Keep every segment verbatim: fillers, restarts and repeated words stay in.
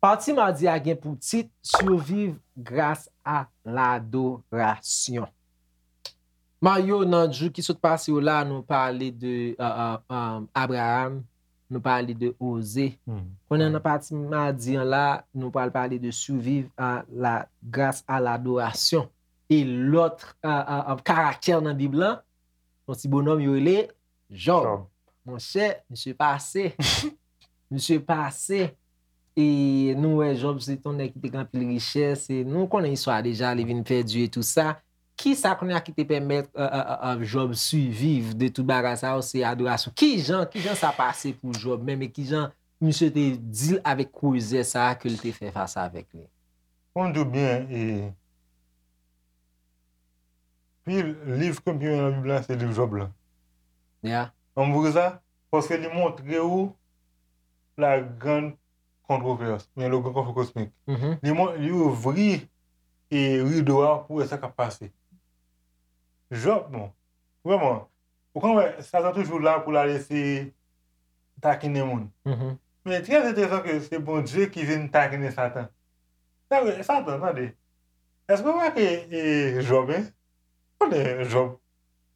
Pati madi a gen pou tit Survivre grâce à l'adoration. Mario, nan jou ki sot pase yo la, nou pale de uh, uh, um, Abraham, nou pale de Oze. Konnen nan pati madi an la, nou pral pale de survivre à la grâce à l'adoration. E lòt uh, uh, uh, karaktè nan Bib lan, yon ti bonòm yo rele Jòb. Monchè, misye pase. Misye pase. E nou wè Jòb se t yon nèg ki te gen anpil richès. E nou konnen istwa deja, li vin pèdi e tou sa. Kisa kounye a ki te pèmèt uh, uh, uh, Jòb siviv de tout bagay sa yo? Se adorasyon. Kijan, kijan sa pase pou Jòb menm e kijan misye te deal avèk kwozè sa a ke l te fè fas avèk li? Pou m di w byen, e, pi liv ke m pi renmen nan Bib la, se liv Jòb la. Yeah. Ann vre sa, paske li montre ou la grande controverse, men le grand conflit cosmique. Li, mon- li ouvri e rido a pou wè sa k ap pase. Jòb, bon, vrèman, ou konn wè, Satan toujou la pou l al eseye takinen moun. Men trè enteresan ke se Bondye ki vin takinen Satan. Sa vre, Satan, tande. Èske w remake e, Jòb, en? Konnen Jòb,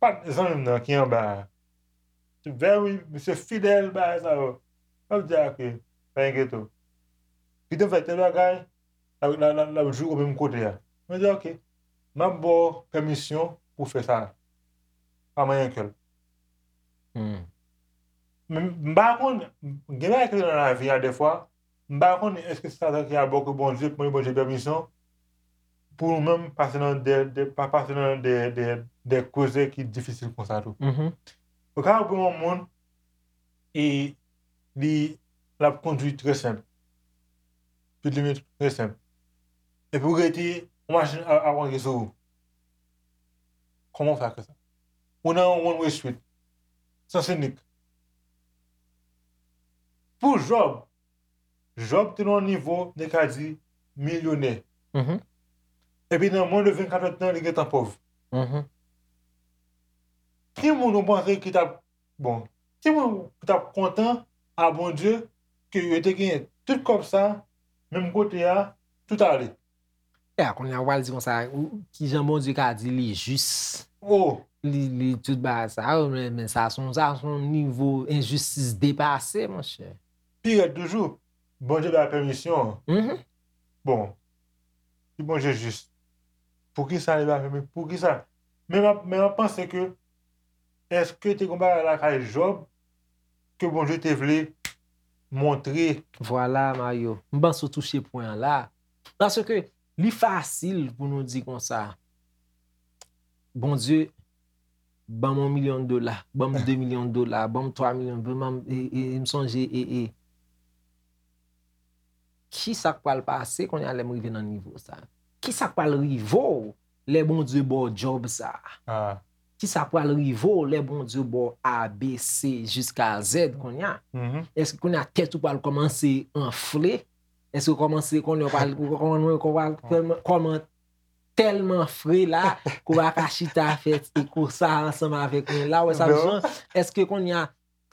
pa zanmi m nan ki anba a. Very, misye fidèl, bagay sa yo. L ap di, "Ah, ok, pa enkyete w. Kite m fè tèl bagay, l ap, l ap, l ap, l ap joure w menm kote a." Mwen di, "Ok, m ap ba w pèmisyon pou w fè sa." Pa manyen kè l. Men m pa konn, gen bagay ki nan lavi a dèfwa, m pa konnen èske se Satan ki ap ba w ke Bondye, mande Bondye pèmisyon pou nou menm pase nan de, de, pa pase nan de, de, de koze ki difisil konsa tou. Ou ka wè yon moun e li l ap kondui trè senp. Speed limit trè senp. Epi ou rete, yon machin ap, ap rantre sou ou. Kòman w fè ak sa? Ou nan yon one way street. Sans inik. Pou Jòb, Jòb te nan yon nivo, nou ka di, milyonè. Epi nan mwens de vennkat èdtan, li gentan pòv. Ki moun ou panse ki t ap, bon, ki moun ki t ap kontan a Bondye ke yo te genyen tout kòb sa, menm kote a, tout ale? E a, kounye a, w al di konsa, ou- kijan Bondye ka di li jis? Oh, Li, li tout bagay sa yo, men, men sa se yon, sa se yon nivo enjistis depase, monchè. Pi rèd toujou, Bondye bay pèmisyon. Bon, si Bondye jis, poukisa li pa fè, poukisa? Men m ap, men m ap panse ke, èske te gen yon bagay lakay Jòb ke Bondye te vle montre? Vwala, Mario. M panse w touche pwen an la. Paske li fasil pou nou di konsa, Bondye, ban m yon milyon dola, ban m de milyon dola, ban m twa milyon, ban m, e, e, e m sonje, e, e, kisa k pral pase kounye a lè m rive nan nivo sa? Kisa k pral rive w lè Bondye ba w djòb sa? Kisa k pral rive w lè Bondye ba w A, B, C jiska Z kounye a? Èske kounye a tèt ou pral kòmanse anfle? Èske w kòmanse konnen w pral, w kòman, w kòman, kòman tèlman fre la, ke w pa ka chita fè ti kou sa ansanm avèk mwen la, w wè sa m di w? Èske kounye a,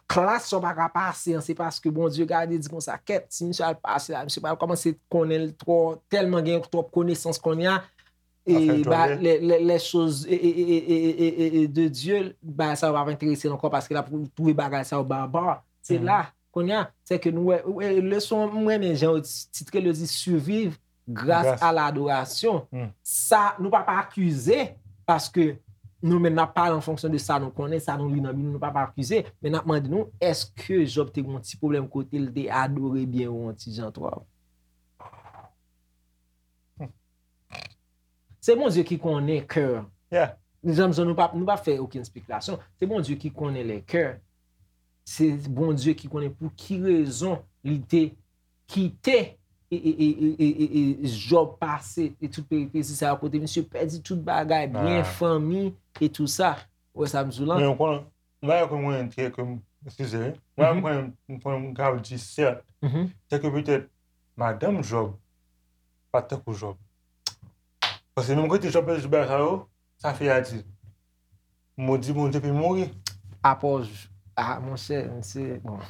klas sa w pa ka pase an, se paske Bondye gade di konsa, kèt, si misye al pase la, misye pral kòmanse konnen l twò, tèlman gen twòp konesans kounye a, e ba, les, les, les choses e, e, e, e, e, e, e de Dieu, bagay sa yo pa enterese l ankò paske l ap twouve bagay sa yo baba. Se la, kounye a, se ke nou wè, wè, leson, m renmen jan yo ti- titre l, yo di survivre grâce à l'adoration. Sa, nou pa pa akize, paske nou menm n ap pale an fonksyon de sa nou konnen, sa nou li nan Bib, nou pa pa akize, men n ap mande nou, èske Jòb te gen yon ti pwoblèm kote l te adore byen ou yon ti jan twòp? Se Bondye ki konnen kè. Janm jan nou pa, nou pa fè okenn espekilasyon. Se Bondye ki konnen lè kè. Se Bondye ki konnen pou ki rezon li te kite e, e, e, e, e, e, e Jòb pase e tout peripesi sa yo kote misye pèdi tout bagay, byen, fanmi e tou sa. Ou wè sa m di w lan? Men ou konnen, yon bagay ke mwen, ke, ke m, eskize, wi. Yon bagay m konnen, m konnen m ka di sèt, se ke petèt madanm Jòb pa t tankou Jòb. Paske menm kote Job pèdi tout bagay sa yo, sa fè a di, modi Bondye epi mouri. Apòj, ah, monchè, misye, bon,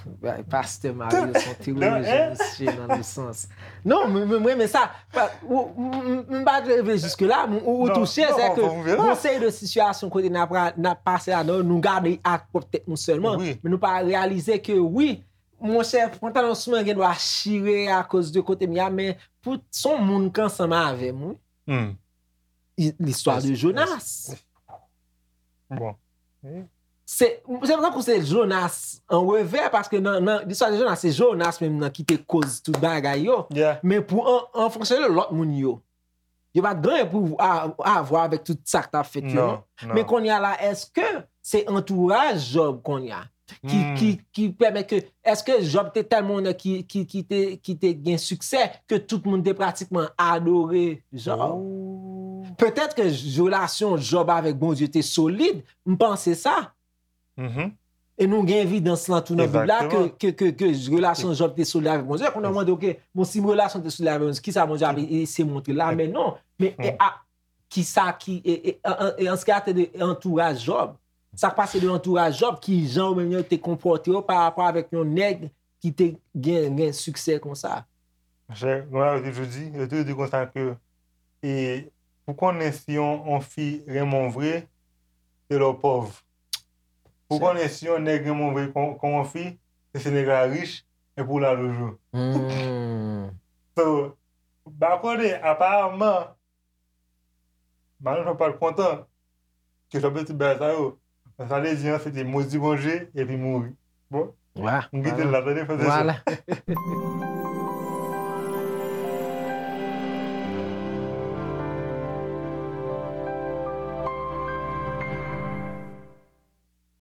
pastè Mario se yon teyolojyen, misye nan le sans. Non, mwen renmen sa. M pa t reve jiske la, ou touche, se ke yon seri de sitiyasyon kote n ap pase ladan, nou gade ak pwòp tèt nou sèlman, men nou pa reyalize ke wi, monchè, pantalon sou mwen gen dwa chire akoz de kote m ye a, men pou son moun k ansanm avè m, wi. Listwa de Jonas. Bon. Se tankou se Jonas an revè, paske nan listwa de Jonas, se Jonas menm nan ki te koz tout bagay yo. Men pou an fonksyon de lòt moun yo, yo pa t gen anyen pou avwa avèk tout sa k t ap fèt yo, non. Men kounye a la, èske se antouraj Jòb kounye a ki, ki, ki pèmèt ke, èske Jòb te tèlman ki, ki, ki, te, ki te gen siksè ke tout moun te pratikman adore Jòb? Petèt ke relasyon Jòb avèk Bondye te solid, m panse sa. E nou gen evidans lan tou nan Bib la ke, ke, ke, ke relasyon Jòb te solid avèk Bondye. Kounye a w mande, ok, bon, si relasyon te solid avèk Bondye, kisa Bondye ap eseye montre la? Men non. Men e, a, kisa ki, e, e, an, an, an se ki atè de antouraj Jòb, sa k pase de antouraj Jòb, ki jan yo menm yo te konpòte yo pa rapò avèk yon nèg ki te gen, gen siksè konsa? Monchè, konsa yo toujou di, yo toujou di konsa ke, e, pou konnen si yon, yon fi renmen w vre, se lè w pòv. Pou konnen si yon nèg renmen w vre kon, kon yon fi, se si nèg la rich epi w la toujou. So, ba konnen, aparaman, Mario pa t kontan ke Jòb te tout bagay sa yo. Sa vle di an, se te modi Bondye epi mouri. Bon, m kite l la, tande, frè e sè.